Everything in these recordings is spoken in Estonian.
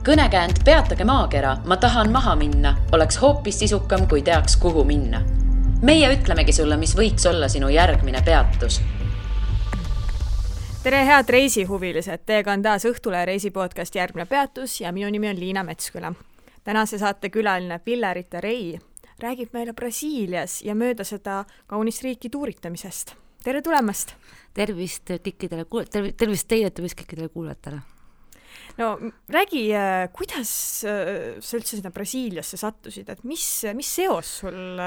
Kõnekäänd Peatage maakera, ma tahan maha minna, oleks hoopis sisukam, kui teaks, kuhu minna. Meie ütlemegi sulle, mis võiks olla sinu järgmine peatus. Tere head reisihuvilised, teiega on taas Õhtule reisipodcast Järgmine peatus ja minu nimi on Liina Metsküla. Tänase saate külaline Pillerita Rei räägib meile Brasiilias ja mööda seda kaunist riiki tuuritamisest. Tere tulemast! Tervist teile, tervist kõikidele kuulajatele. No räägi, kuidas sa üldse sinna Brasiiliasse sattusid, et mis seos sul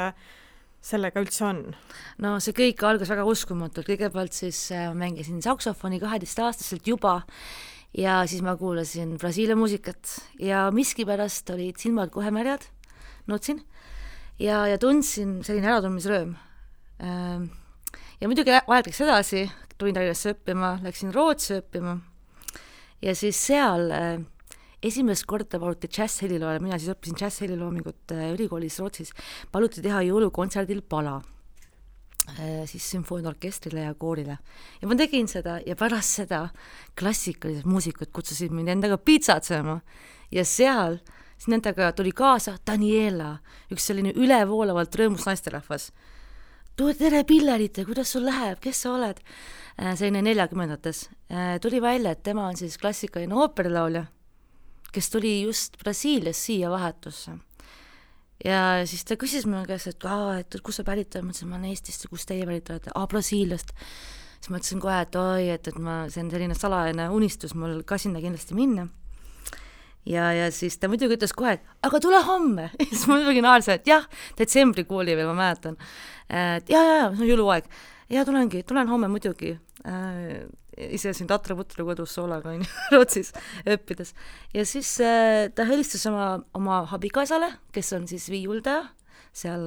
sellega üldse on? No see kõik algas väga uskumatult. Kõigepealt siis mängisin saksofoni 12-aastaselt juba ja siis ma kuulasin Brasiilia muusikat ja miskipärast olid silmad kohe märjad, nutsin ja tundsin selline äratundmisrööm. Ja muidugi aeg läks edasi, tulin Tallinnasse õppima, läksin Rootsi õppima ja siis seal esimest korda paluti džäss-heliloole, mina siis õppisin džäss-heliloomingut ülikoolis Rootsis, paluti teha jõulukontserdil pala siis sümfooniaorkestrile ja koorile. Ja ma tegin seda ja pärast seda klassikalised muusikud kutsusid mind endaga piitsatsema ja seal siis nendega tuli kaasa Daniela, üks selline ülevoolavalt rõõmus naisterahvas. Tere Pillerita, kuidas sul läheb, kes sa oled? Selline 40-ndates. Tuli välja, et tema on siis klassikaline ooperilaulja, kes tuli just Brasiilias siia vahetusse. Ja siis ta küsis minu käest, et kus sa pärit oled? Ma ütlesin, ma olen Eestist, kus teie pärit olete? Brasiiliast. Siis ma ütlesin kohe, et see on selline salajane unistus mul ka sinna kindlasti minna. Ja siis ta muidugi ütles kohe, et aga tule homme. Ja siis ma muidugi naarsin, et jah, detsembrikuuli veel ma mäletan. Ja, see on jõuluaeg. Ja tulen homme muidugi. Ise siin Tatra-Putru kodus soolaga Rootsis õppides. Ja siis ta helistas oma abikaisale, kes on siis viiuldaja. Seal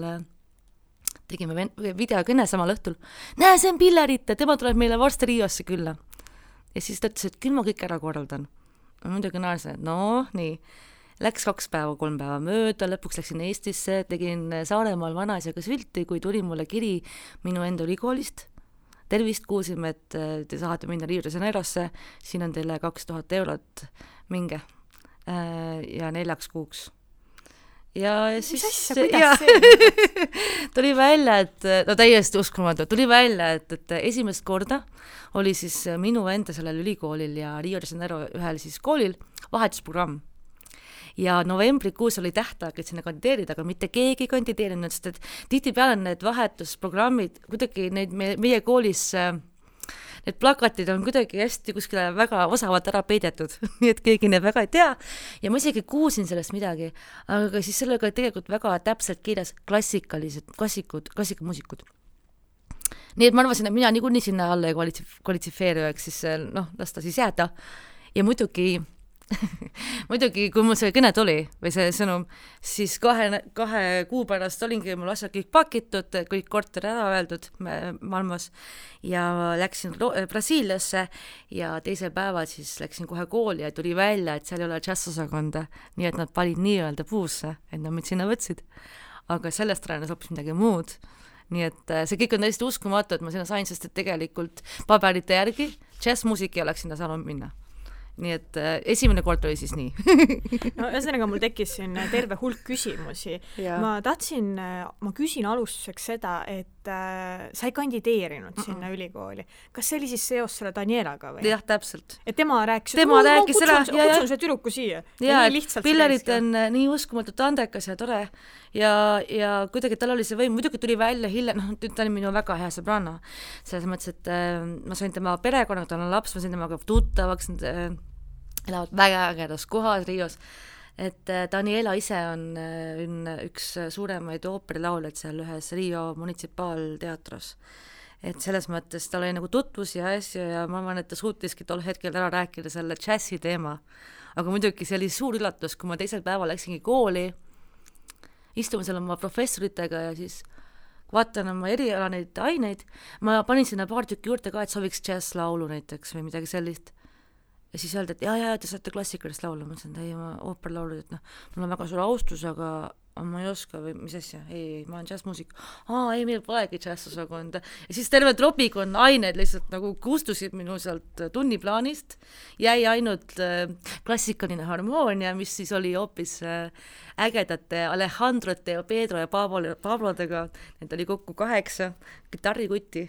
tegime videokõne samal õhtul. Näe, see on Pillerita, tema tuleb meile varsti Riosse külla. Ja siis ta ütles, et küll ma kõik ära korraldan. Muidugi naarsin, et nii. Läks 2 päeva, 3 päeva mööda, lõpuks läksin Eestisse, tegin Saaremaal vanaisaga sülti, kui tuli mulle kiri minu enda ülikoolist. Tervist, kuulsime, et te saate minna Rio de Janeirosse, siin on teile 2000 eurot, minge ja 4 kuuks. Ja siis tuli välja, et täiesti uskumatu, tuli välja, et esimest korda oli siis minu enda sellel ülikoolil ja Rio de Janeiro ühel siis koolil vahetusprogramm. Ja novembrikuus oli tähtaeg, et sinna kandideerida, aga mitte keegi kandideerinud, sest et tihtipeale need vahetusprogrammid, kuidagi meie koolis need plakatid on kuidagi hästi kuskile väga osavalt ära peidetud, nii et keegi need väga ei tea ja ma isegi kuulsin sellest midagi, aga siis sellega tegelikult väga täpselt kirjas klassikamuusikud. Nii et ma arvasin, et mina niikuinii sinna alla ei kvalitsifeeru, siis las ta siis jääda ja muidugi, kui mul see kõne tuli või see sõnum, siis 2 kuu pärast olingi mul asjad kõik pakitud, kõik korter ära öeldud Malmos ja läksin Brasiiliasse ja teisel päeval siis läksin kohe kooli ja tuli välja, et seal ei ole džässosakonda, nii et nad panid nii-öelda puusse, et nad mind sinna võtsid. Aga sellest räänes hoopis midagi muud. Nii et see kõik on täiesti uskumatu, et ma sinna sain, sest et tegelikult paberite järgi džässmuusik ei oleks sinna saanud minna. Nii et esimene kord oli siis nii. No ühesõnaga mul tekkis siin terve hulk küsimusi. Ma küsin alustuseks seda, et sa ei kandideerinud sinna ülikooli. Kas see oli siis seos selle Danielaga või? Jah, täpselt. Et tema rääkis kutsun see türuku siia. Ja Pillerit on nii uskumatult andekas ja tore ja kuidagi tal oli see võim, muidugi tuli välja hiljem, ta oli minu väga hea sõbranna. Selles mõttes, et ma sain tema perekonnaga, tal on laps, ma sain temaga tuttavaks, elavad väga ägedas kohas Rios. Et Daniela ise on üks suuremaid ooperilauljaid seal ühes Rio munitsipaalteatros. Et selles mõttes tal oli nagu tutvus ja asju ja ma arvan, et ta suutiski tol hetkel ära rääkida selle džässi teema. Aga muidugi see oli suur üllatus, kui ma teisel päeval läksingi kooli, istume seal oma professoritega ja siis vaatan oma eriala neid aineid, ma panin sinna paar tükki juurde ka, et sooviks džässlaulu näiteks või midagi sellist. Ja siis öelda, et ja, te saate klassikalist laulu, ma ütlesin, et ei, ma ooperlaulud, et mul on väga suur austus, aga ma ei oska või mis asja, ei, ma olen džässmuusik. Ei, meil polegi džässosakonda. Ja siis terve tropikon ained lihtsalt nagu kustusid minu sealt tunniplaanist, jäi ainult klassikaline harmoonia, mis siis oli hoopis ägedate Alejandrote ja Pedro ja Pablodega, need oli kokku 8 kitarrikutti,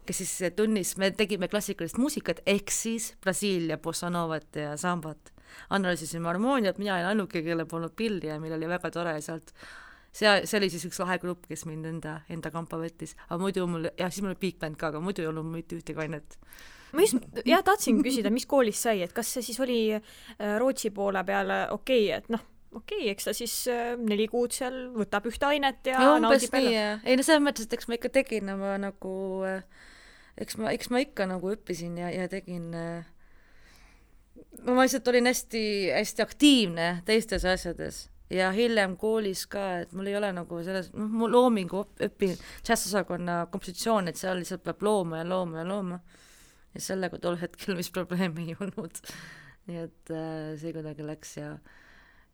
kes siis tunnis, me tegime klassikalist muusikat, ehk siis Brasiilia, bossa novat ja sambat. Analüüsisime harmooniat, mina olin ainuke, kelle polnud pilli ja meil oli väga tore sealt. See oli siis üks lahe grupp, kes mind enda kampa võttis. Aga muidu mul, siis mul oli big band ka, aga muidu ei olnud mitte ühtegi ainet. Ma just, tahtsin küsida, mis koolis sai, et kas see siis oli Rootsi poole peale okei, et eks ta siis 4 kuud seal võtab ühte ainet ja naudib peale. Ei, selles mõttes, et eks ma ikka tegin nagu, eks ma ikka nagu õppisin ja tegin ma lihtsalt olin hästi, hästi aktiivne teistes asjades ja hiljem koolis ka, et mul ei ole nagu selles, mul loomingu õpin džässosakonna kompositsioon, et seal lihtsalt peab looma ja sellega tol hetkel mis probleemi ei olnud. Nii et see kuidagi läks ja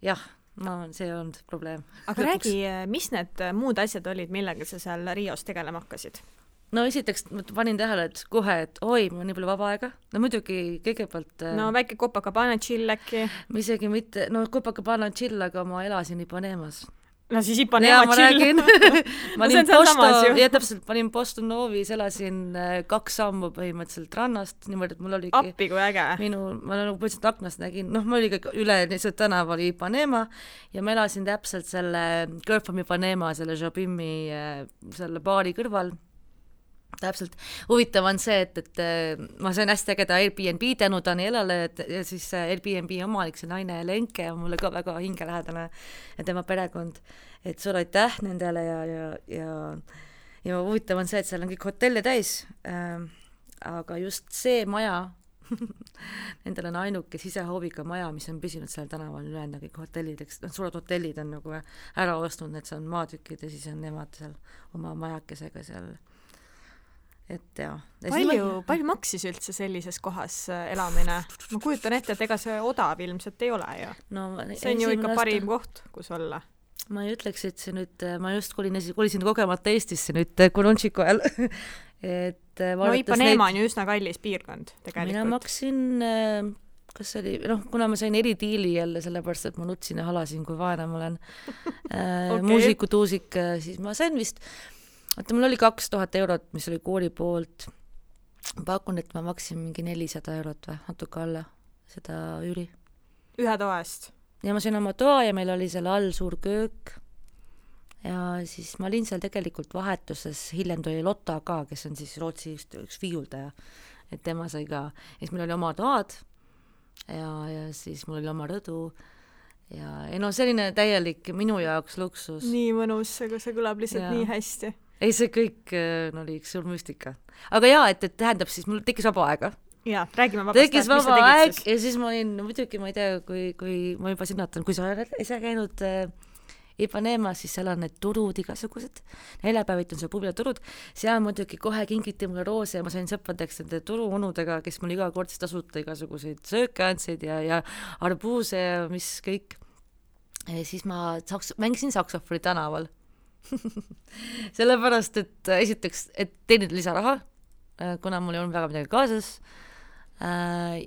see ei olnud probleem. Aga räägi, mis need muud asjad olid, millega sa seal Rios tegelema hakkasid? No esiteks ma panin tähele, et kohe, et oi, mul on nii palju vaba aega. No muidugi kõigepealt... No väike Copacabana chill äkki. Isegi mitte, Copacabana chill, aga ma elasin Ipanemas. No siis Ipanema chill. Täpselt, panin Boston Novis, elasin 2 sammu põhimõtteliselt rannast, niimoodi, et mul oligi... Appi kui äge. Ma nagu põhimõtteliselt aknast nägin, ma oligi üle lihtsalt tänav oli Ipanema ja ma elasin täpselt selle Girl from Ipanema, selle Jobimi, selle baari kõrval. Täpselt. Huvitav on see, et ma sain hästi ägeda Airbnb tänu Danielale ja siis Airbnb omanik, see naine Lenke on mulle ka väga hingelähedane ja tema perekond, et suur aitäh nendele ja huvitav on see, et seal on kõik hotelle täis, aga just see maja, nendel on ainuke sisehooviga maja, mis on püsinud seal tänaval ülejäänud kõik hotellid, suured hotellid on nagu ära ostnud, et see on maatükid ja siis on nemad seal oma majakesega seal. Et palju maksis üldse sellises kohas elamine? Ma kujutan ette, et ega see odav ilmselt ei ole ju. See on ju ikka parim koht, kus olla. Ma ei ütleks, et see nüüd, ma just kolisin kogemata Eestisse nüüd Kurunšiku ajal. Ipanema on ju üsna kallis piirkond tegelikult. Mina maksin, kas oli, kuna ma sain eridiili jälle sellepärast, et ma nutsin ja halasin, kui vaene ma olen muusikutuusik, siis ma sain vist mul oli 2000 eurot, mis oli kooli poolt. Pakun, et ma maksin mingi 400 eurot või natuke alla seda üüri. Ühe toast? Ja ma sain oma toa ja meil oli seal all suur köök. Ja siis ma olin seal tegelikult vahetuses, hiljem tuli Lotta ka, kes on siis Rootsi üks viiuldaja. Et tema sai ka. Ja siis meil oli oma toad ja siis mul oli oma rõdu. Ja selline täielik minu jaoks luksus. Nii mõnus, aga see kõlab lihtsalt nii hästi. Ei, see kõik oli üks suur müstika. Aga et tähendab siis, mul tekkis vaba aega. Jaa, räägime vabast. Tekkis vaba aeg ja siis ma olin, muidugi ma ei tea, kui ma juba sinnatan, kui sa ise käinud Ipanemas, siis seal on need turud igasugused. Neljapäevit on seal pubilaturud. Seal muidugi kohe kingiti mulle roose ja ma sain sõpradeks nende turuunudega, kes mul iga kord tasuta igasuguseid sööke andsid ja arbuuse ja mis kõik. Ja siis ma mängisin saksofoni tänaval. Sellepärast, et esiteks, et teenida lisaraha, kuna mul ei olnud väga midagi kaasas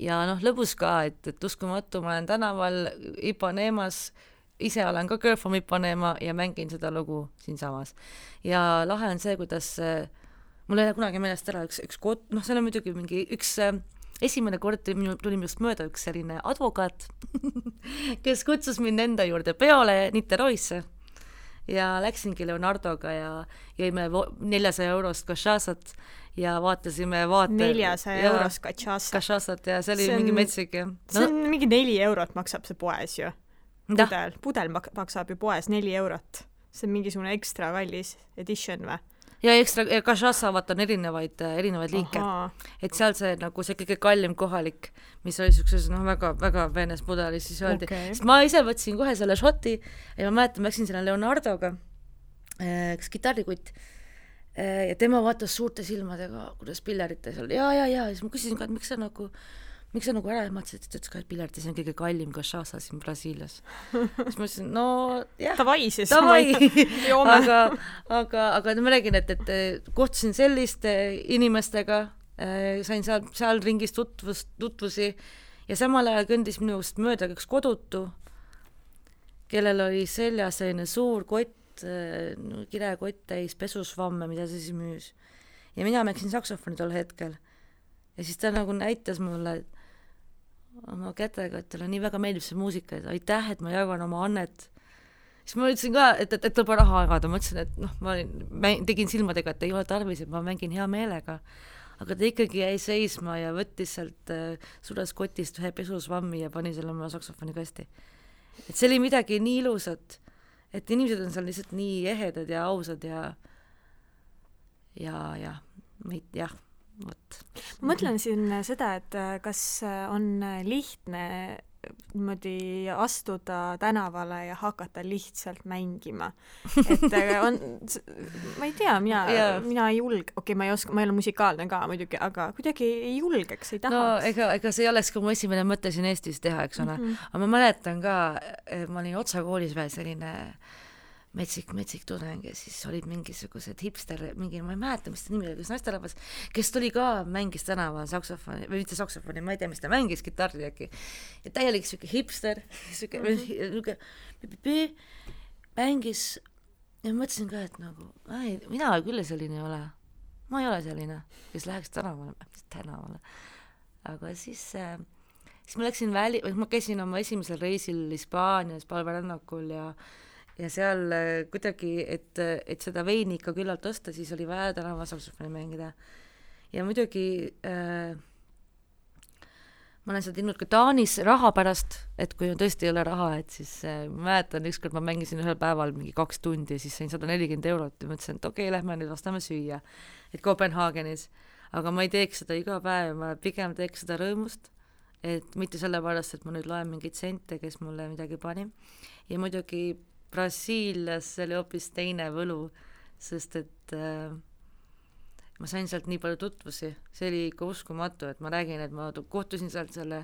ja lõbus ka, et uskumatu, ma olen tänaval Ipanemas, ise olen ka Girl from Ipanema ja mängin seda lugu siinsamas. Ja lahe on see, kuidas mul ei ole kunagi meelest ära üks kod, see on muidugi mingi üks esimene kord tuli minust mööda üks selline advokaat, kes kutsus mind enda juurde peole Niteroisse. Ja läksingi Leonardoga ja jõime 400 eurost kašasat ja vaatasime 400 eurost kašasat ja see oli mingi metsik. See on mingi 4 eurot maksab see poes ju. Pudel maksab ju poes 4 eurot. See on mingisugune ekstra kallis edition või? Ja ekstra, kašasa on erinevaid liike. Et seal see nagu see kõige kallim kohalik, mis oli sellises väga, väga veenes pudelis, siis öeldi. Sest ma ise võtsin kohe selle šoti ja ma mäletan, ma läksin selle Leonardoga, üks kitarrikutt, ja tema vaatas suurte silmadega, kuidas pillerites oli. Ja siis ma küsisin ka, et miks sa nagu miks sa nagu ära ehmatasid, et ütles ka, et pilerdi see on kõige kallim cachaça siin Brasiilias. Siis ma ütlesin, no jah, davai siis. aga ma räägin, et kohtusin selliste inimestega, sain seal ringis tutvusi ja samal ajal kõndis minust mööda üks kodutu, kellel oli seljas selline suur kott, kirekott täis pesusvamme, mida see siis müüs. Ja mina mängsin saksofoni tol hetkel. Ja siis ta nagu näitas mulle oma kätega, et talle nii väga meeldib see muusika, et aitäh, et ma jagan oma annet. Siis ma ütlesin ka, et tuleb raha jagada. Ma ütlesin, et ma tegin silmadega, et ei ole tarvis, et ma mängin hea meelega. Aga ta ikkagi jäi seisma ja võttis sealt suures kotist ühe pesusvammi ja pani selle oma saksofoni kasti. Et see oli midagi nii ilusat, et inimesed on seal lihtsalt nii ehedad ja ausad ja vot. Ma mõtlen siin seda, et kas on lihtne niimoodi astuda tänavale ja hakata lihtsalt mängima. Et on, ma ei tea, mina ei julge, ma ei ole musikaalne ka muidugi, aga kuidagi ei julgeks, ei tahaks. No ega see ei oleks ka mu esimene mõte siin Eestis teha, eks ole. Aga ma mäletan ka, ma olin Otsa koolis veel selline metsik tudeng ja siis olid mingisugused hipster, ma ei mäleta, mis ta nimi oli, kus naisterahvas, kes tuli ka, mängis tänaval saksofoni, või mitte saksofoni, ma ei tea, mis ta mängis, kitarri äkki. Ja täielik siuke hipster, mängis ja mõtlesin ka, et nagu, mina küll selline ei ole. Ma ei ole selline, kes läheks tänavale. Aga siis ma läksin ma käisin oma esimesel reisil Hispaanias palverännakul ja seal kuidagi, et seda veini ikka küllalt osta, siis oli vaja tänava saksofoni mängida. Ja muidugi ma olen seda teinud ka Taanis raha pärast, et kui tõesti ei ole raha, et siis ma mäletan, ükskord ma mängisin ühel päeval mingi 2 tundi ja siis sain 140 € ja mõtlesin, et okei, lähme nüüd vastame süüa, et Kopenhaagenis. Aga ma ei teeks seda iga päev, ma pigem teeks seda rõõmust, et mitte sellepärast, et ma nüüd loen mingeid sente, kes mulle midagi pani. Ja muidugi Brasiilias oli hoopis teine võlu, sest et ma sain sealt nii palju tutvusi, see oli ikka uskumatu, et ma räägin, et ma kohtusin sealt selle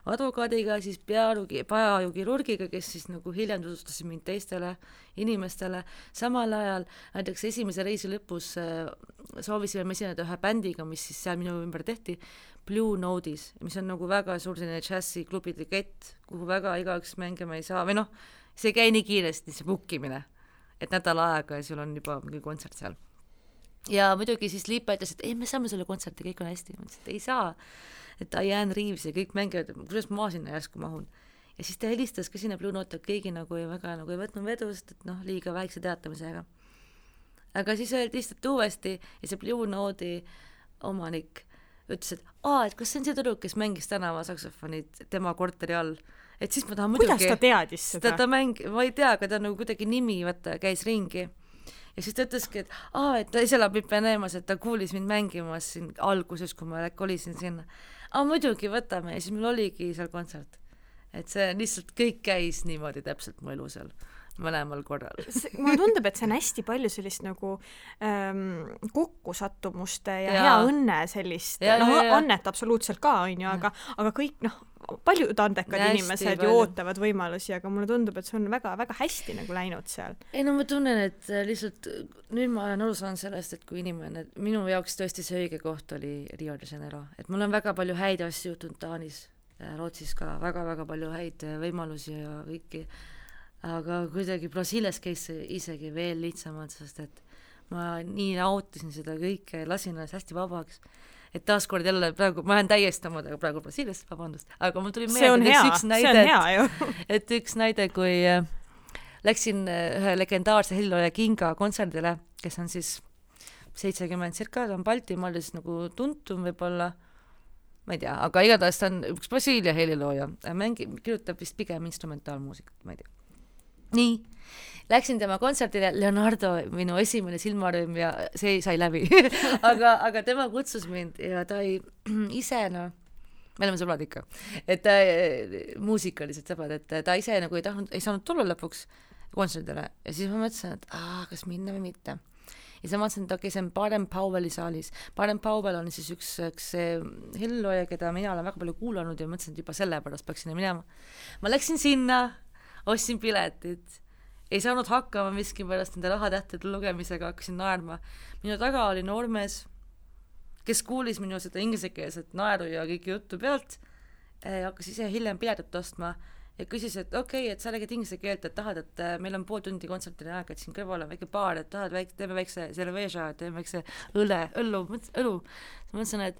advokaadiga, siis peaajukirurgiga, kes siis nagu hiljem tutvustasid mind teistele inimestele. Samal ajal näiteks esimese reisi lõpus soovisime me esineda ühe bändiga, mis siis seal minu ümber tehti, Blue Notes, mis on nagu väga suur selline džässi klubide kett, kuhu väga igaüks mängima ei saa, või noh, see ei käi nii kiiresti, see bookimine, et nädal aega ja sul on juba mingi kontsert seal. Ja muidugi siis Liipa ütles, et ei, me saame selle kontserti, kõik on hästi. Ma ütlesin, et ei saa, et Diane Reeves ja kõik mängivad, kuidas ma sinna järsku mahun. Ja siis ta helistas ka sinna Blue Note, et keegi nagu ei võtnud vedust, et noh, liiga väikse teatamisega. Aga siis öeldi lihtsalt uuesti ja see Blue Note'i omanik ütles, et kas see on see tüdruk, kes mängis tänava saksofonid tema korteri all. Et siis ma tahan muidugi... Kuidas ta teadis seda? Ma ei tea, aga ta nagu kuidagi nimi käis ringi. Ja siis ta ütleski, et ta ise elab Ipeneemas, et ta kuulis mind mängimas siin alguses, kui ma kolisin sinna. Muidugi võtame ja siis meil oligi seal kontsert. Et see lihtsalt kõik käis niimoodi täpselt mu elu seal mõlemal korral. Mulle tundub, et see on hästi palju sellist nagu kokkusattumuste ja hea õnne sellist, annet absoluutselt ka, on ju, aga kõik, paljud andekad inimesed ju ootavad võimalusi, aga mulle tundub, et see on väga-väga hästi nagu läinud seal. Ei, ma tunnen, et lihtsalt nüüd ma olen aru saanud sellest, et kui inimene, minu jaoks tõesti see õige koht oli Rio de Janeiro, et mul on väga palju häid asju juhtunud Taanis, Rootsis ka väga-väga palju häid võimalusi ja kõiki, aga kuidagi Brasiilias käis isegi veel lihtsamalt, sest et ma nii nautisin seda kõike, lasin ennast hästi vabaks, et taaskord jälle praegu, ma olen täiesti omadega praegu Brasiilias, vabandust, aga mul tuli meelde üks näide, kui läksin ühe legendaarse helilooja Kinga kontserdile, kes on siis 70 circa, ta on Baltimaal siis nagu tuntum võib-olla, ma ei tea, aga igatahes ta on üks Brasiilia helilooja, kirjutab vist pigem instrumentaalmuusikat, ma ei tea. Nii, läksin tema kontserdile, Leonardo, minu esimene silmarõõm ja see sai läbi, aga tema kutsus mind ja ta ise, me oleme sõbrad ikka, et muusikalised sõbrad, et ta ise nagu ei saanud tulla lõpuks kontserdile ja siis ma mõtlesin, et kas minna või mitte. ja siis ma mõtlesin, et okei, see on Baden Powelli saalis. Baden Powell on siis üks hellilooja, keda mina olen väga palju kuulanud ja mõtlesin, et juba sellepärast peaks sinna minema. Ma läksin sinna, ostsin piletid, ei saanud hakkama miskipärast nende rahatähtede lugemisega, hakkasin naerma. Minu taga oli noormees, kes kuulis minu seda ingliskeelset naeru ja kõiki juttu pealt, hakkas ise hiljem piletit ostma ja küsis, et okei, et sa räägid inglise keelt, et tahad, et meil on pool tundi kontsertile aega, et siin kõrval on väike baar, et tahad, teeme väikse cerveza, teeme väikse õlu. Ma mõtlesin, et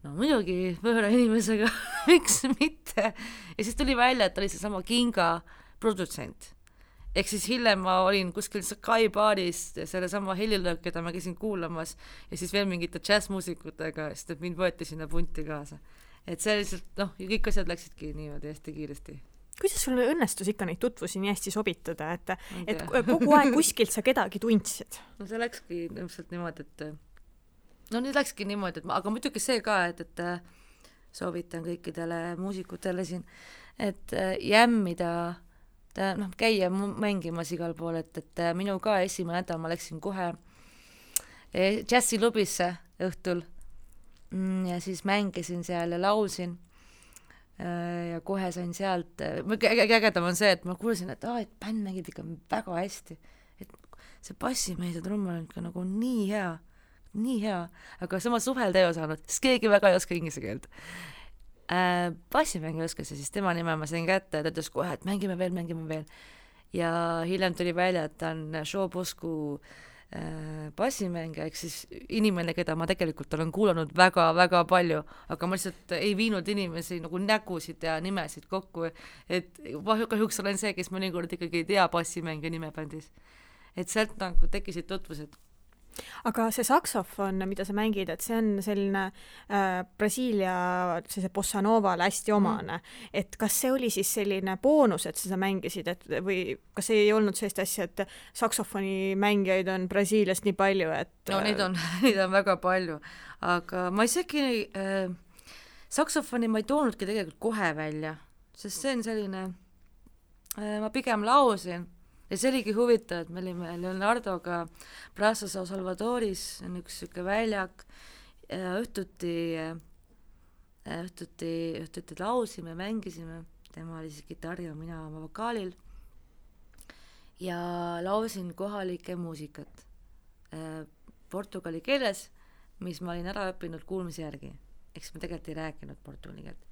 no muidugi võõra inimesega, miks mitte. Ja siis tuli välja, et oli see sama Kinga produtsent. Ehk siis hiljem ma olin kuskil Sky baaris selle sama helilöök, keda ma käisin kuulamas ja siis veel mingite jazzmuusikutega, sest et mind võeti sinna punti kaasa. Et see lihtsalt, kõik asjad läksidki niimoodi hästi kiiresti. Kuidas sul õnnestus ikka neid tutvusi nii hästi sobitada, et kogu aeg kuskilt sa kedagi tundsid? No see läkski ilmselt niimoodi, nüüd läkski niimoodi, aga muidugi see ka, et soovitan kõikidele muusikutele siin, et jämmida käia mängimas igal pool, et minu ka esimene nädal ma läksin kohe džässilubisse õhtul ja siis mängisin seal ja laulsin ja kohe sain sealt, ägedam on see, et ma kuulsin, et bänd mängib ikka väga hästi, et see bassimees ja trummel on ikka nagu nii hea, aga sama suhelda ei osanud, sest keegi väga ei oska inglise keelt. Bassimängi oskas ja siis tema nime ma sain kätte ja ta ütles kohe, et mängime veel ja hiljem tuli välja, et ta on Showbosku bassimängija, ehk siis inimene, keda ma tegelikult olen kuulanud väga-väga palju, aga ma lihtsalt ei viinud inimesi nagu nägusid ja nimesid kokku, et kahjuks olen see, kes mõnikord ikkagi ei tea bassimängija nimebändis, et sealt nagu tekkisid tutvused. Aga see saksofon, mida sa mängid, et see on selline Brasiilia sellise bossa novale hästi omane, et kas see oli siis selline boonus, et sa mängisid, või kas ei olnud sellist asja, et saksofoni mängijaid on Brasiiliast nii palju, et... No neid on väga palju, aga ma isegi saksofoni ma ei toonudki tegelikult kohe välja, sest see on selline, ma pigem lausin. Ja see oligi huvitav, et me olime Leonardoga Praça São Salvadoris, on üks süke väljak, õhtuti lausime, mängisime, tema oli siis kitarri ja mina oma vokaalil ja lausin kohalike muusikat portugali keeles, mis ma olin ära õppinud kuulmise järgi, eks ma tegelikult ei rääkinud portugali keelt.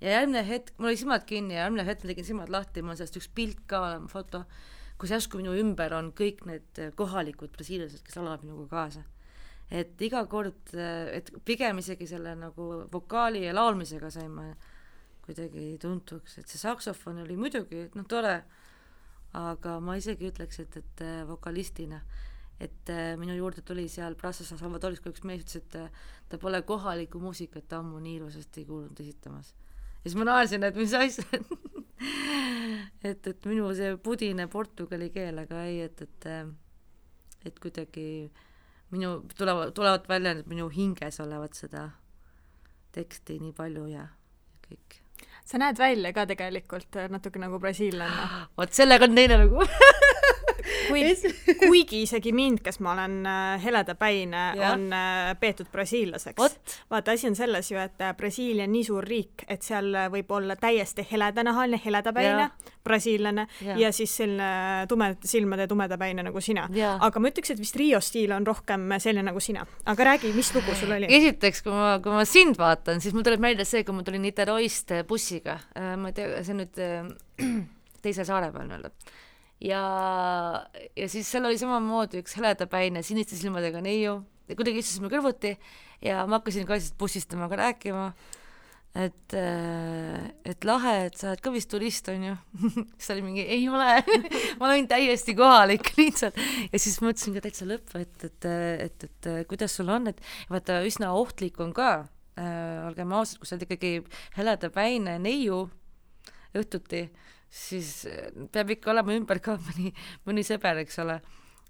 Ja järgmine hetk, mul oli silmad kinni ja järgmine hetk ma tegin silmad lahti, mul on sellest üks pilt ka olema, foto, kus järsku minu ümber on kõik need kohalikud brasiilased, kes laulavad minuga kaasa. Et iga kord, et pigem isegi selle nagu vokaali ja laulmisega sain ma kuidagi tuntuks, et see saksofon oli muidugi tore, aga ma isegi ütleks, et vokalistina, et minu juurde tuli seal Praça São Salvadoris, kui üks mees ütles, et ta pole kohalikku muusikat ammu nii ilusasti kuulnud esitamas. Ja siis ma naersin, et mis asja, et minu see pudine portugali keel, aga ei, et kuidagi tulevad välja, et minu hinges olevat seda teksti nii palju ja kõik. Sa näed välja ka tegelikult natuke nagu brasiillane. Vot sellega on teine lugu. Kuigi isegi mind, kes ma olen heledapäine, on peetud brasiillaseks. Vaata, asi on selles ju, et Brasiilia on nii suur riik, et seal võib olla täiesti heledanahaline, heledapäine, brasiillane ja siis selline silmade tumedapäine nagu sina. Aga ma ütleks, et vist Rio stiil on rohkem selline nagu sina. Aga räägi, mis lugu sul oli? Esiteks, kui ma sind vaatan, siis mul tuleb meelde see, kui ma tulin Niteroist bussiga. Ma ei tea, see nüüd teise saare peal öelda. Ja siis seal oli samamoodi üks heledapäine siniste silmadega neiu ja kuidagi istusime kõrvuti ja ma hakkasin ka bussist temaga rääkima, et lahe, et sa oled ka vist turist, on ju. Siis oli mingi, ei ole, ma olen täiesti kohalik lihtsalt ja siis mõtlesin ka täitsa lõppu, et kuidas sul on, et vaata üsna ohtlik on ka, olgem ausad, kui sa oled ikkagi heledapäine neiu õhtuti, siis peab ikka olema ümber ka mõni sõber, eks ole,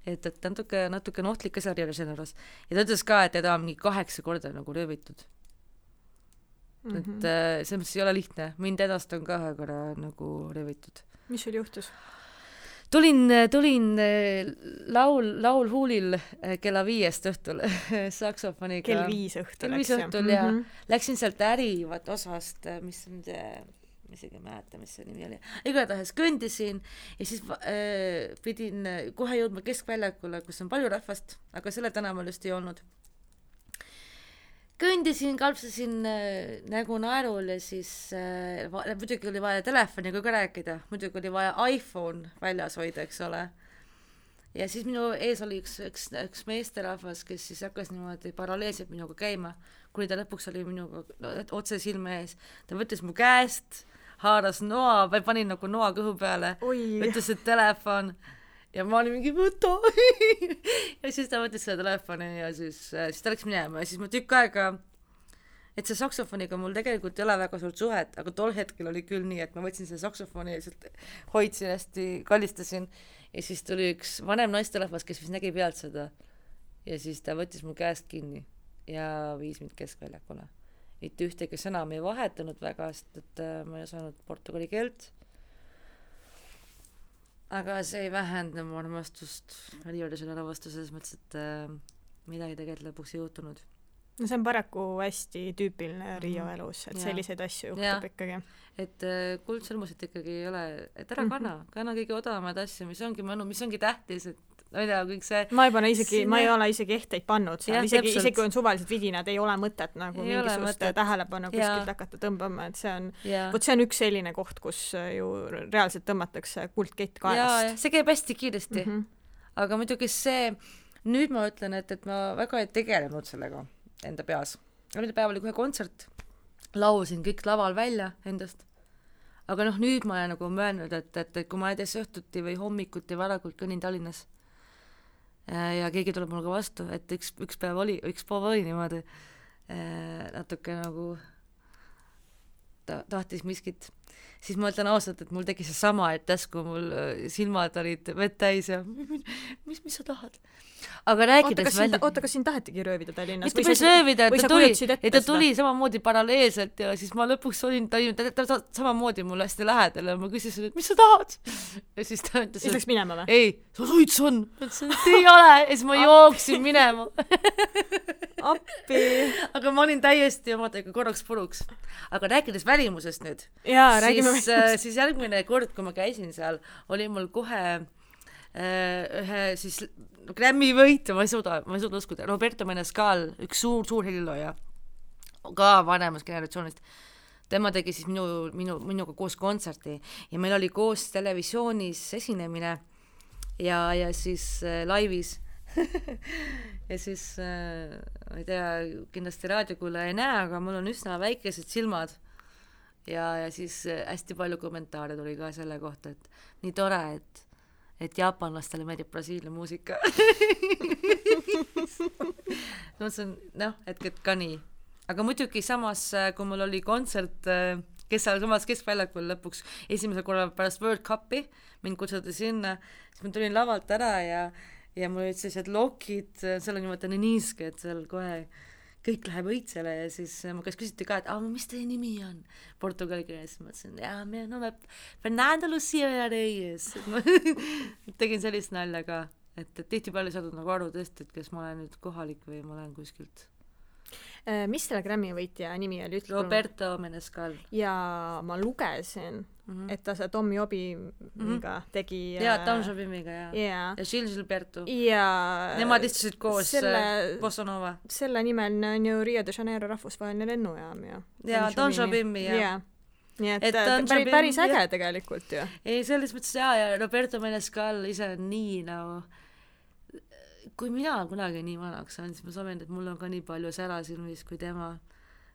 et natuke ohtlik asjari oli selle juures. Ja ta ütles ka, et teda on mingi 8 korda nagu röövitud. Et see ei ole lihtne. Mind edast on ka ühe korra nagu röövitud. Mis sul juhtus? tulin laulhuulil kella 5 õhtul saksofoniga. Kell 5 õhtul. Kell 5 õhtul ja läksin sealt ärivat osast, mis on isegi mäleta, mis see nimi oli. Igatahes kõndisin ja siis pidin kohe jõudma keskväljakule, kus on palju rahvast, aga selle tänaval just ei olnud. Kõndisin, kalpsasin nägu naerul ja siis muidugi oli vaja telefoniga ka rääkida, muidugi oli vaja iPhone väljas hoida, eks ole. Ja siis minu ees oli üks meesterahvas, kes siis hakkas niimoodi paralleelselt minuga käima, kuni ta lõpuks oli minuga otse silme ees. Ta võttis mu käest, haaras noa, või panin nagu noa kõhu peale, võttis see telefon ja ma olin mingi võta ja siis ta võttis selle telefoni ja siis ta läks minema ja siis ma tükk aega, et see saksofoniga mul tegelikult ei ole väga suurt suhet, aga tol hetkel oli küll nii, et ma võtsin selle saksofoni ja hoidsin hästi, kallistasin ja siis tuli üks vanem naisterahvas, kes vist nägi pealt seda ja siis ta võttis mu käest kinni ja viis mind keskväljakule. Mitte ühtegi sõna me ei vahetanud väga, sest et ma ei osanud portugali keelt. Aga see ei vähenda mu armastust Rio de Janeiro vastu selles mõttes, et midagi tegelikult lõpuks ei juhtunud. No see on paraku hästi tüüpiline Rio elus, et selliseid asju juhtub ikkagi. Et kuldsõlmusid ikkagi ei ole, et ära kanna kõige odavamaid asju, mis ongi mõnu, mis ongi tähtis, et ma ei tea, kõik see... Ma ei ole isegi ehteid pannud seal, isegi kui on suvalised vidinad, ei ole mõtet nagu mingisugust tähelepanu kuskilt hakata tõmbama, et see on, see on üks selline koht, kus ju reaalselt tõmmatakse kuldkett kaelast. Ja see käib hästi kiiresti. Aga muidugi see, nüüd ma ütlen, et ma väga ei tegelenud sellega enda peas. Enda päev oli kohe kontsert, laulsin kõik laval välja endast. Aga nüüd ma olen nagu möönud, et kui ma näiteks õhtuti või hommikuti varakult kõnnin Tallinnas ja keegi tuleb mulle ka vastu, et üks päev oli niimoodi natuke nagu tahtis miskit, siis ma ütlen ausalt, et mul tegi see sama, et täsku mul silmad olid vett täis ja mis sa tahad? Aga rääkides oota, kas siin tahetigi röövida Tallinnas? Mitte päris röövida, et ta tuli samamoodi paralleelselt ja siis ma lõpuks olin ta samamoodi mulle hästi lähedal ja ma küsisin, et mis sa tahad? Ja siis ta ütles, et läks minema või? Ei, sa suits on. Ütlesin, et ei ole ja siis ma jooksin minema. Appi. Aga ma olin täiesti omadega korraks puruks. Aga rääkides välimusest nüüd, siis järgmine kord, kui ma käisin seal, oli mul kohe ühe siis Grammy võitu, ma ei suuda uskuda, Roberto Menescal, üks suur helilooja, ka vanemast generatsioonist. Tema tegi siis minuga koos kontserti ja meil oli koos televisioonis esinemine ja siis laivis ja siis ma ei tea, kindlasti raadiokuule ei näe, aga mul on üsna väikesed silmad ja siis hästi palju kommentaare tuli ka selle kohta, et nii tore, et jaapanlastele meeldib Brasiilia muusika. No see on, et ka nii. Aga muidugi samas, kui mul oli kontsert, kes seal samas keskväljakul lõpuks esimesel korral pärast World Cupi, mind kutsuti sinna, siis ma tulin lavalt ära ja mul olid sellised lokid, seal on niimoodi niiske, et seal kohe kõik läheb õitsele ja siis ma kas küsiti ka, et mis teie nimi on portugali keeles, ma ütlesin, meie nome Fernando Lucia Reyes. Tegin sellist nalja ka, et tihti palju saadud nagu aru tõesti, et kes ma olen nüüd kohalik või ma olen kuskilt. Mis selle Grammy võitja nimi oli? Roberto Menescal. Ja ma lugesin, et ta see Tom Jobiga tegi... Ja, Tom Jobiga, ja Gilles Gilberto. Ja... Nemad istusid koos Bossa Nova. Selle nimel on ju Rio de Janeiro rahvusvaheline lennujaam. Ja, Tom Jobimi, ja. Nii et päris äge tegelikult ju. Ei, selles mõttes, ja Roberto Menescal ise on nii nagu... Kui mina kunagi nii vanaks on, siis ma soovin, et mul on ka nii palju sära silmis kui tema,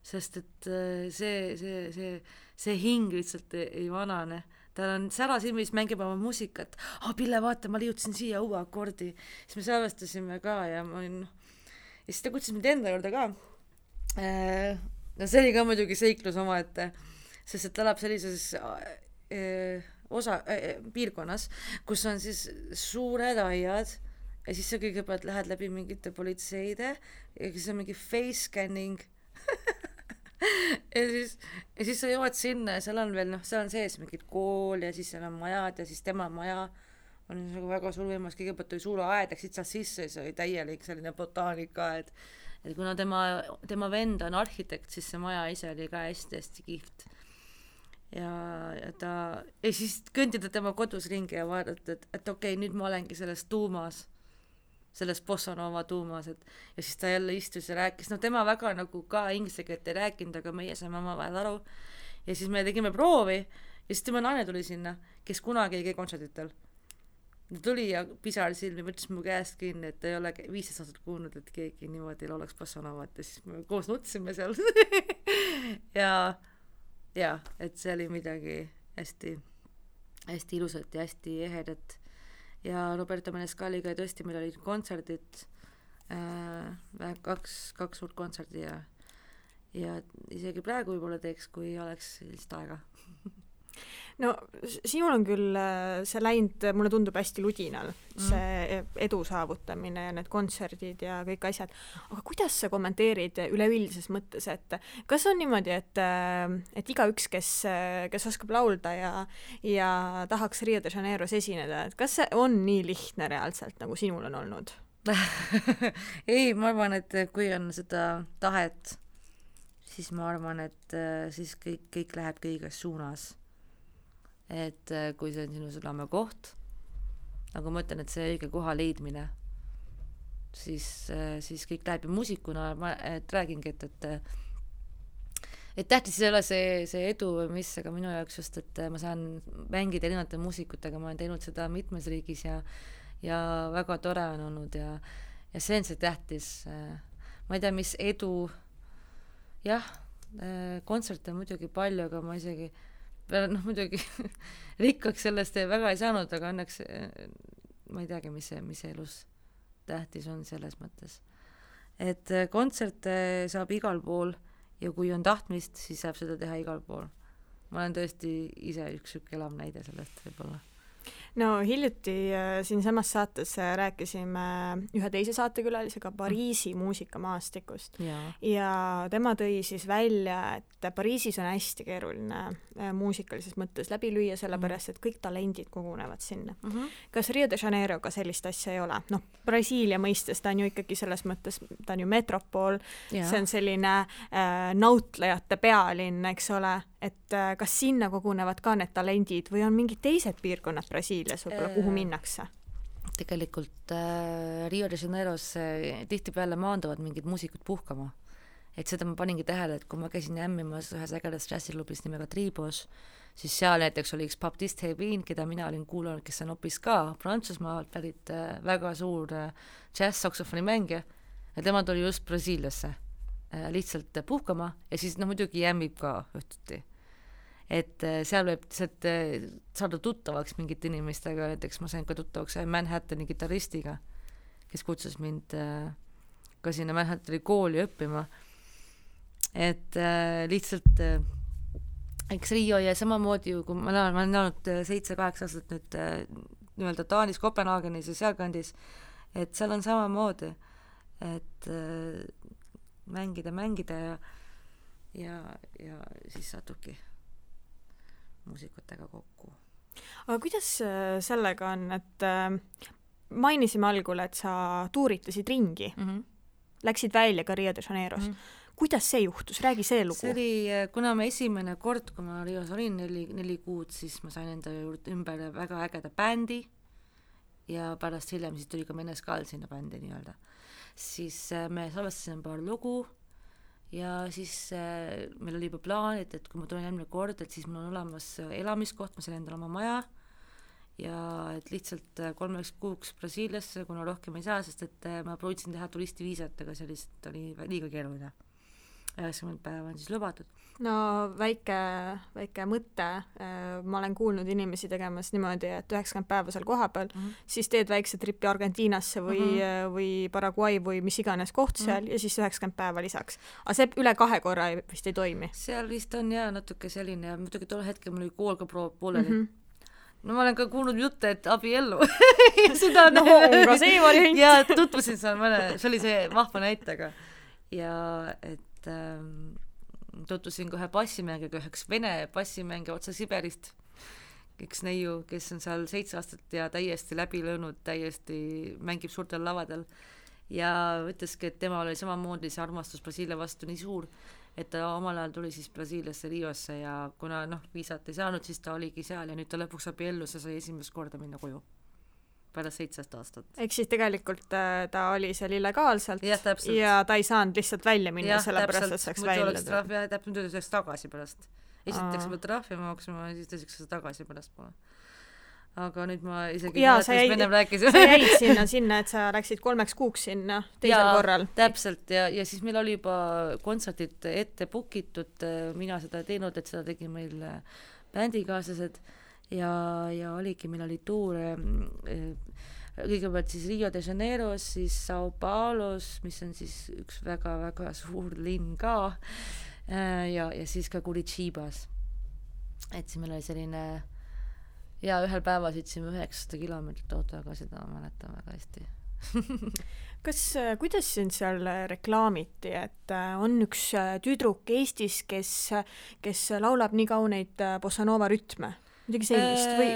sest et see hing lihtsalt ei vanane. Tal on sära silmis, mängib oma muusikat. Pille, vaata, ma liiutasin siia uue akordi. Siis me salvestasime ka ja ma olin... Ja siis ta kutsus mind enda juurde ka. No see oli ka muidugi seiklus omaette, sest et ta elab sellises piirkonnas, kus on siis suured aiad, ja siis sa kõigepealt lähed läbi mingite politseide ja siis on mingi face scanning ja siis sa jõuad sinna ja seal on veel, seal on sees mingid kool ja siis seal on majad ja siis tema maja oli nagu väga suur võimalus, kõigepealt oli suur aed, läksid seal sisse, see oli täielik selline botaanikaaed, et kuna tema vend on arhitekt, siis see maja ise oli ka hästi-hästi kihvt. Ja siis kõndida tema kodus ringi ja vaadata, et okei, nüüd ma olengi selles tuumas, selles Bossa Nova tuumas, ja siis ta jälle istus ja rääkis, tema väga nagu ka inglise keelt ei rääkinud, aga meie saime omavahel aru. Ja siis me tegime proovi ja siis tema naine tuli sinna, kes kunagi ei käi kontserditel. Ta tuli ja pisar silmi, võttis mu käest kinni, et ta ei ole 15 aastat kuulnud, et keegi niimoodi laulaks Bossa Novat ja siis me koos nutsime seal. ja, et see oli midagi hästi, hästi ilusat ja hästi ehedat. Ja Roberto Menescaliga tõesti meil olid kontserdid, kaks suurt kontserdi ja isegi praegu võib-olla teeks, kui oleks sellist aega. No sinul on küll see läinud, mulle tundub hästi ludinal, see edu saavutamine ja need kontserdid ja kõik asjad, aga kuidas sa kommenteerid üleüldises mõttes, et kas on niimoodi, et igaüks, kes oskab laulda ja tahaks Rio de Janeiros esineda, et kas see on nii lihtne reaalselt, nagu sinul on olnud? Ei, ma arvan, et kui on seda tahet, siis ma arvan, et siis kõik läheb kõiges suunas. Et kui see on sinu südame koht, nagu ma ütlen, et see õige koha leidmine, siis kõik läheb ja muusikuna et räägingi, et tähtis ei ole see edu või mis, aga minu jaoks just, et ma saan mängida erinevate muusikutega, ma olen teinud seda mitmes riigis ja väga tore on olnud ja see on see tähtis. Ma ei tea, mis edu, jah, kontserte muidugi palju, aga ma isegi muidugi rikkaks sellest väga ei saanud, aga õnneks ma ei teagi, mis elus tähtis on selles mõttes. Et kontserte saab igal pool ja kui on tahtmist, siis saab seda teha igal pool. Ma olen tõesti ise üks elav näide sellest võib-olla. No hiljuti siinsamas saates rääkisime ühe teise saatekülalisega Pariisi muusikamaastikust ja tema tõi siis välja, et Pariisis on hästi keeruline muusikalises mõttes läbi lüüa, sellepärast, et kõik talendid kogunevad sinna. Kas Rio de Janeiroga sellist asja ei ole? Brasiilia mõistes ta on ju ikkagi selles mõttes, ta on ju metropool, see on selline nautlejate pealinn, eks ole, et kas sinna kogunevad ka need talendid või on mingid teised piirkonnad Brasiilias võib-olla, kuhu minnakse? Tegelikult Rio de Janeiros tihtipeale maanduvad mingid muusikud puhkama. Et seda ma paningi tähele, et kui ma käisin ämmimas ühes ägedas džässiklubis nimega Tribos, siis seal näiteks oli üks Baptiste Hebin, keda mina olin kuulanud, kes on hoopis ka Prantsusmaalt pärit väga suur džäss-saksofoni mängija ja tema tuli just Brasiiliasse lihtsalt puhkama ja siis muidugi jämmib ka õhtuti. Et seal võib saada tuttavaks mingite inimestega, näiteks ma sain ka tuttavaks Manhattani kitaristiga, kes kutsus mind ka sinna Manhattani kooli õppima. Et lihtsalt eks Rio ja samamoodi, kui ma olen olnud 7-8 aastat nüüd nii-öelda Taanis, Kopenhaagenis ja sealkandis, et seal on samamoodi, et mängida ja siis satubki muusikutega kokku. Aga kuidas sellega on, et mainisime algul, et sa tuuritasid ringi, läksid välja ka Rio de Janeiros. Kuidas see juhtus? Räägi see lugu. See oli, kuna ma esimene kord, kui ma Rios olin 4 kuud, siis ma sain enda juurde ümber väga ägeda bändi ja pärast hiljem siis tuli ka Menescal sinna bändi nii-öelda. Siis me salvestasime paar lugu ja siis meil oli juba plaan, et kui ma tulen järgmine kord, et siis mul on olemas elamiskoht, ma sain endale oma maja ja et lihtsalt 3 kuuks Brasiiliasse, kuna rohkem ei saa, sest et ma proovisin teha turistiviisat, aga see lihtsalt oli liiga keeruline. 90 päeva on siis lubatud. No väike mõte, ma olen kuulnud inimesi tegemas niimoodi, et 90 päeva seal koha peal, siis teed väikse tripi Argentiinasse või Paraguay või mis iganes koht seal ja siis 90 päeva lisaks. Aga see üle 2 korra vist ei toimi? Seal vist on natuke selline ja muidugi tol hetkel mul oli kool ka pooleli. No ma olen ka kuulnud jutte, et abiellu. No ka see variant. Ja tutvusin seal see oli see vahva näitega. Ja et tutvusin kohe bassimängiga, üheks vene bassimängi otsa Siberist, üks neiu, kes on seal 7 aastat ja täiesti läbi löönud, täiesti mängib suurtel lavadel ja ütleski, et tema oli samamoodi see armastus Brasiilia vastu nii suur, et ta omal ajal tuli siis Brasiiliasse Riosse ja kuna viisat ei saanud, siis ta oligi seal ja nüüd ta lõpuks abiellus ja sai esimest korda minna koju pärast 17 aastat. Ehk siis tegelikult ta oli seal illegaalselt ja ta ei saanud lihtsalt välja minna, sellepärast et saaks välja. Täpselt nüüd saaks tagasi pärast. Esiteks ma trahvi maksma ja siis tõseks seda tagasi pärast pole. Aga nüüd ma isegi sa jäid sinna, et sa läksid 3 kuuks sinna teisel korral. Täpselt ja siis meil oli juba kontserdid ette bookitud, mina seda teinud, et seda tegi meil bändikaaslased ja oligi, meil oli tuur kõigepealt siis Rio de Janeiros, siis Sao Paulos, mis on siis üks väga-väga suur linn ka ja siis ka Curitiba's. Et siis meil oli selline ja ühel päeval sõitsime 900 kilomeetrit autoga, seda mäletan väga hästi. Kuidas sind seal reklaamiti, et on üks tüdruk Eestis, kes laulab nii kauneid bossa nova rütme? Midagi sellist või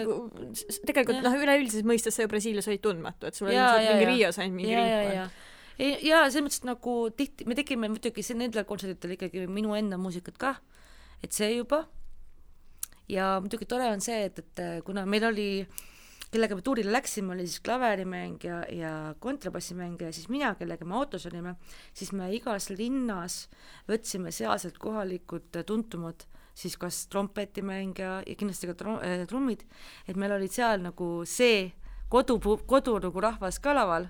tegelikult üleüldises mõistes sa ju Brasiilias olid tundmatu, et sul oli mingi Rios ainult mingi ringkond. Ja selles mõttes nagu tihti, me tegime muidugi nendel kontserditel ikkagi minu enda muusikat ka, et see juba. Ja muidugi tore on see, et kuna meil oli, kellega me tuurile läksime, oli siis klaverimäng ja kontrabassimänge ja siis mina, kellega me autos olime, siis me igas linnas võtsime sealselt kohalikud tuntumad, siis kas trompetimäng ja kindlasti ka trummid, et meil olid seal nagu see kodu nagu rahvas ka laval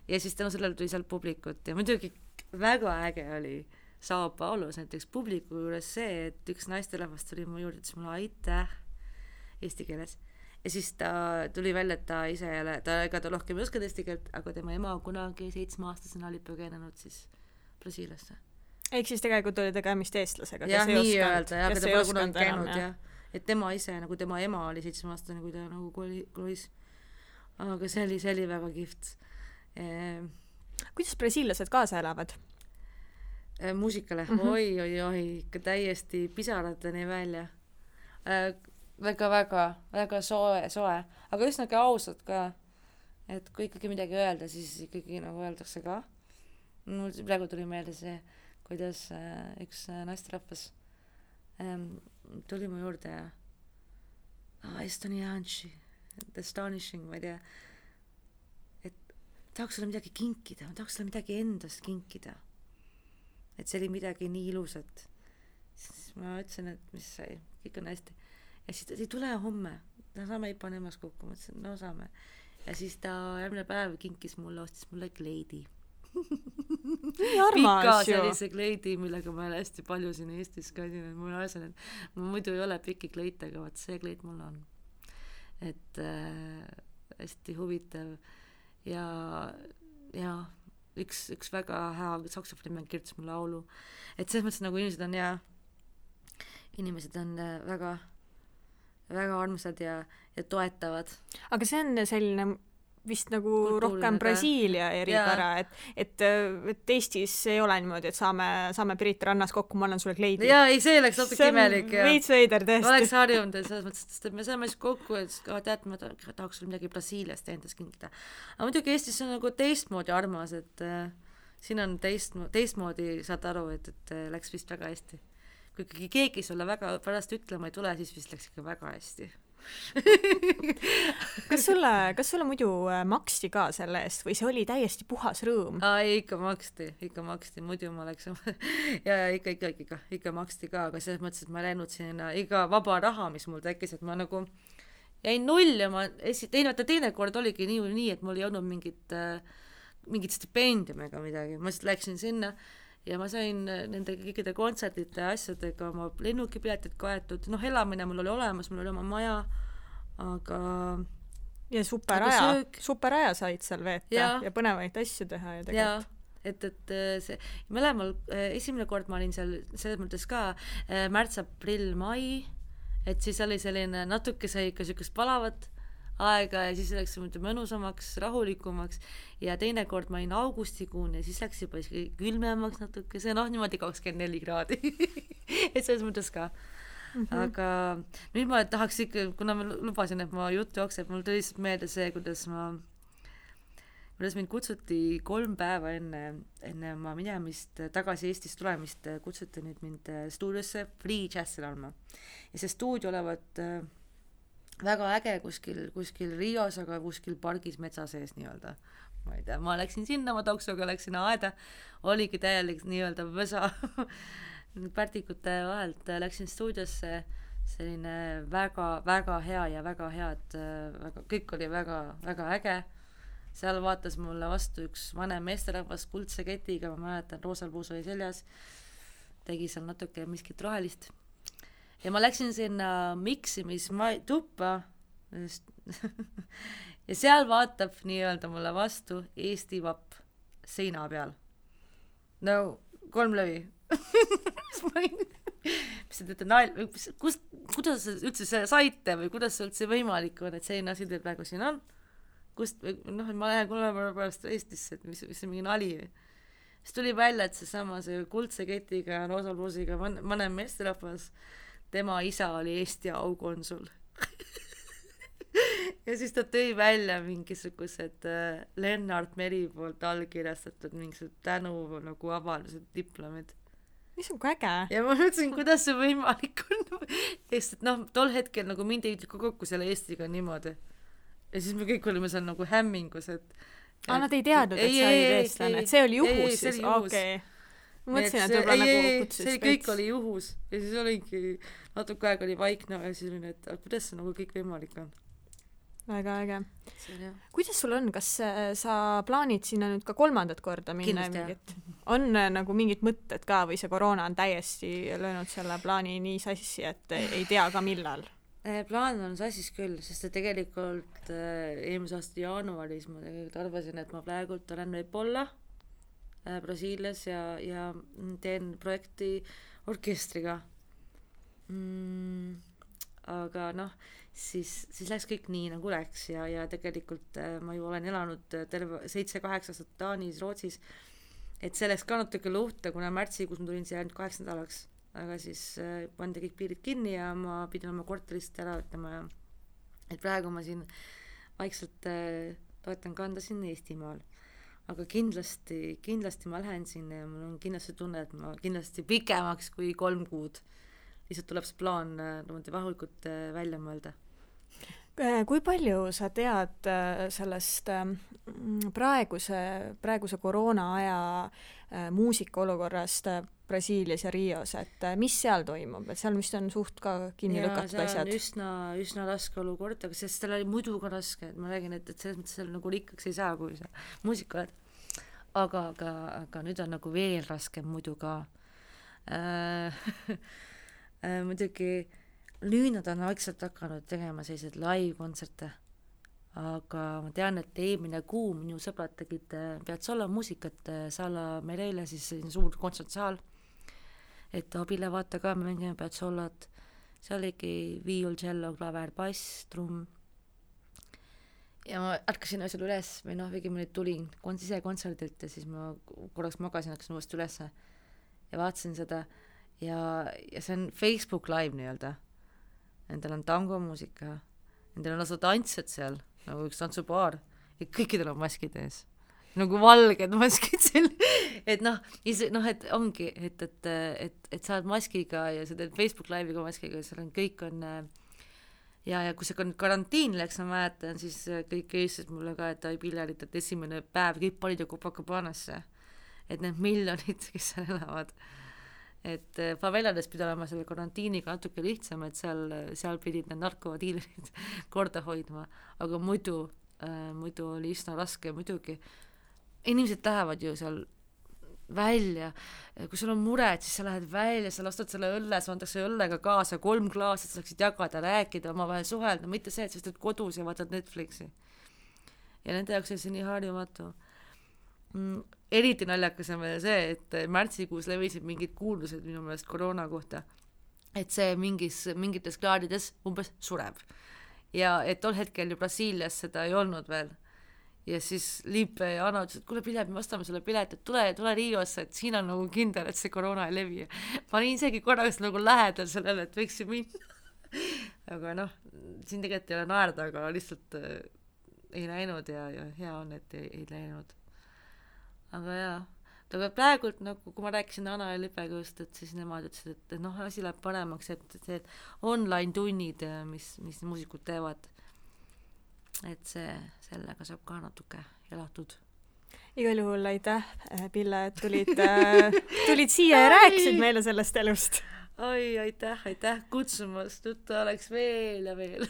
ja siis tänu sellele tuli seal publikut ja muidugi väga äge oli Sao Paulos näiteks publiku juures see, et üks naisterahvas tuli mu juurde, ütles mulle aitäh eesti keeles ja siis ta tuli välja, et ta ise jälle, ega ta rohkem ei oska eesti keelt, aga tema ema kunagi 7-aastasena oli põgenenud siis Brasiiliasse. Ehk siis tegelikult oli tegemist eestlasega, kes ei osanud, aga ta pole kunagi käinud ja et tema ise, nagu tema ema oli 7-aastane, kui ta nagu kolis. Aga see oli väga kihvt. Kuidas brasiillased kaasa elavad? Muusikale, oi, ikka täiesti pisarateni välja. Väga soe, aga üsnagi ausad ka, et kui ikkagi midagi öelda, siis ikkagi nagu öeldakse ka. Mul praegu tuli meelde see, kuidas üks naisterahvas tuli mu juurde ja astonishing, ma ei tea, et tahaks sulle midagi kinkida, tahaks sulle midagi endast kinkida, et see oli midagi nii ilusat. Siis ma ütlesin, et mis sai, kõik on hästi ja siis ta ei tule homme, saame ei pane emas kokku, ma ütlesin, no saame ja siis ta järgmine päev kinkis mulle, ostis mulle kleidi pika sellise kleidi, millega ma olen hästi palju siin Eestis käisin, et mul asjan, et ma muidu ei ole pikki kleite, aga vaat see kleid mul on, et hästi huvitav ja üks väga hea saksofonimäng kirjutas mu laulu, et selles mõttes nagu inimesed on väga armsad ja toetavad. Aga see on selline vist nagu rohkem Brasiilia eripära, et Eestis ei ole niimoodi, et saame Pirit rannas kokku, ma annan sulle kleidi. Jaa, ei, see läks natuke imelik. See on veits veider tõesti. Ma oleks harjunud, selles mõttes, et me saame siis kokku, et tead, ma tahaks sulle midagi Brasiiliast endast kinkida. Aga muidugi Eestis on nagu teistmoodi armas, et siin on teistmoodi, saad aru, et läks vist väga hästi. Kui ikkagi keegi sulle väga pärast ütlema ei tule, siis vist läks ikka väga hästi. Kas sulle muidu maksti ka selle eest või see oli täiesti puhas rõõm? Ikka maksti, muidu ma läks ja ikka maksti ka, aga selles mõttes, et ma läinud sinna iga vaba raha, mis mul tekkis, et ma nagu jäin null ja ma teine kord oligi nii, et mul ei olnud mingit stipendium ega midagi, ma lihtsalt läksin sinna ja ma sain nende kõikide kontserdite asjadega oma lennukipiletid kaetud, elamine mul oli olemas, mul oli oma maja, aga ja superaja said seal veeta ja põnevaid asju teha ja tegelikult. Et see, mõlemal esimene kord ma olin seal selles mõttes ka märts, aprill, mai, et siis oli selline natuke sai ikka sükest palavat aega ja siis läks mõnusamaks, rahulikumaks ja teine kord ma olin augustikuun ja siis läks juba külmemaks natuke, see niimoodi 24 kraadi et selles mõttes ka. Aga nüüd ma tahaks ikka, kuna ma lubasin, et ma jutt jookseb, mul tuli lihtsalt meelde see, kuidas mind kutsuti 3 päeva enne ma minemist, tagasi Eestist tulemist, kutsuti nüüd mind stuudiosse Free Jazzi laulma. Ja see stuudio olevat väga äge kuskil Rios, aga kuskil pargis metsa sees nii-öelda. Ma ei tea, ma läksin sinna, ma taksoga läksin aeda, oligi täielik nii-öelda võsa pärtikute vahelt, läksin stuudiosse, selline väga hea ja väga head, kõik oli väga äge. Seal vaatas mulle vastu üks vanem meesterahvas kuldse ketiga, ma mäletan, roosal puus oli seljas, tegi seal natuke miskit rohelist. Ja ma läksin sinna miksimistuppa ja seal vaatab nii-öelda mulle vastu Eesti vapp seina peal. No, 3 lõvi. Mis te teete kuidas üldse see saite või kuidas see üldse võimalik on, et selline asi teil praegu siin on? Ma lähen 3 päeva pärast Eestisse, et mis see mingi nali või. Siis tuli välja, et see kuldse ketiga, roosapluusiga vanem meesterahvas, tema isa oli Eesti aukonsul. Ja siis ta tõi välja mingisugused Lennart Meri poolt allkirjastatud mingisugused tänu nagu avaldused, diplomid. Mis on äge? Ja ma mõtlesin, kuidas see võimalik on. Sest tol hetkel nagu mind ei kokku selle Eestiga niimoodi. Ja siis me kõik olime seal nagu hämmingus, et nad ei teadnud, et sa olid eestlane, et see oli juhus siis? Okei. Ma mõtlesin, et võib-olla nagu kutsus see kõik oli juhus ja siis oligi, natuke aeg oli vaikne ja siis olin, et kuidas see nagu kõik võimalik on? Väga äge. Kuidas sul on, kas sa plaanid sinna nüüd ka 3. korda minna? On nagu mingid mõtted ka või see koroona on täiesti löönud selle plaani nii sassi, et ei tea ka millal? Plaan on sassis küll, sest tegelikult eelmise aasta jaanuaris ma tegelikult arvasin, et ma praegult olen võib-olla Brasiilias ja teen projekti orkestriga. Aga siis läks kõik nii nagu läks ja tegelikult ma ju olen elanud terve 7-8 aastat Taanis, Rootsis, et see läks ka natuke luhta, kuna märtsikuus ma tulin siia ainult 8 nädalaks. Aga siis pandi kõik piirid kinni ja ma pidin oma korterist ära ütlema ja et praegu ma siin vaikselt toetan kanda siin Eestimaal. Aga kindlasti ma lähen sinna ja mul on kindlasti tunne, et ma kindlasti pikemaks kui 3 kuud. Lihtsalt tuleb see plaan vahulikult välja mõelda. Kui palju sa tead sellest praeguse koroona aja muusika olukorrast Brasiilias ja Rios, et mis seal toimub, et seal vist on suht ka kinni lükatud asjad? See on üsna raske olukord, aga sest tal oli muidu ka raske, et ma räägin, et selles mõttes seal nagu rikkaks ei saa, kui sa muusika oled. Aga nüüd on nagu veel raskem muidu ka. Muidugi nüüd nad on vaikselt hakanud tegema sellised live-kontserte, aga ma tean, et eelmine kuu minu sõbrad tegid Piazzolla muusikat Sala Mereile, siis suur kontsertsaal, et abile vaata ka, me mängime Piazzollat, seal oligi viiul, cello, klaver, bass, trumm. Ja ma ärkasin asjal üles, või õigemini tulin ise kontserdilt ja siis ma korraks magasin, hakkasin uuesti üles ja vaatasin seda ja see on Facebook live nii-öelda. Nendel on tangomuusika, nendel on lausa tantsjad seal, nagu üks tantsupaar ja kõikidel on maskid ees. Nagu valged maskid seal, et et ongi, et sa oled maskiga ja sa teed Facebook live'iga maskiga ja seal on kõik on ja kui see karantiin läks, ma mäletan, siis kõik eestlased mulle ka, et Pillarit, et esimene päev kõik panid ju Copacabanasse, et need miljonid, kes seal elavad, et favelades pidi olema selle karantiiniga natuke lihtsam, et seal pidid need narkodiilerid korda hoidma, aga muidu oli üsna raske muidugi. Inimesed lähevad ju seal välja, kui sul on mured, siis sa lähed välja, sa lastad selle õlle, sa antakse õllega kaasa 3 klaas, et sa saaksid jagada, rääkida, omavahel suhelda, mitte see, et sa teed kodus ja vaatad Netflixi. Ja nende jaoks on see nii harjumatu. Eriti naljakas on veel see, et märtsikuus levisid mingid kuuldused minu meelest koroona kohta, et see mingites kraadides umbes sureb. Ja et tol hetkel ju Brasiilias seda ei olnud veel. ja siis Liipe ja Anna ütles, et kuule Pille, me ostame sulle pilet, et tule Riosse, et siin on nagu kindel, et see koroona ei levi. Ma olin isegi korraks nagu lähedal sellele, et võiks ju minna. Aga noh, siin tegelikult ei ole naerda, aga lihtsalt ei läinud ja hea on, et ei läinud. Aga jaa, aga praegult nagu, kui ma rääkisin Anna ja Lipega just, et siis nemad ütlesid, et noh, asi läheb paremaks, et online tunnid, mis muusikud teevad, et sellega saab ka natuke elatud. Igal juhul aitäh, Pille, et tulid siia ja rääkisid meile sellest elust. Oi, aitäh kutsumast, juttu oleks veel ja veel.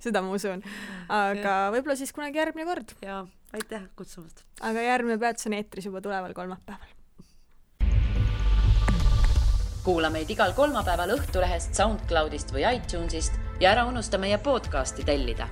Seda ma usun. Aga võib-olla siis kunagi järgmine kord. Jaa, aitäh kutsumast. Aga järgmine peatus on eetris juba tuleval kolmapäeval. Kuula meid igal kolmapäeval Õhtulehest, SoundCloudist või iTunesist ja ära unusta meie podcasti tellida.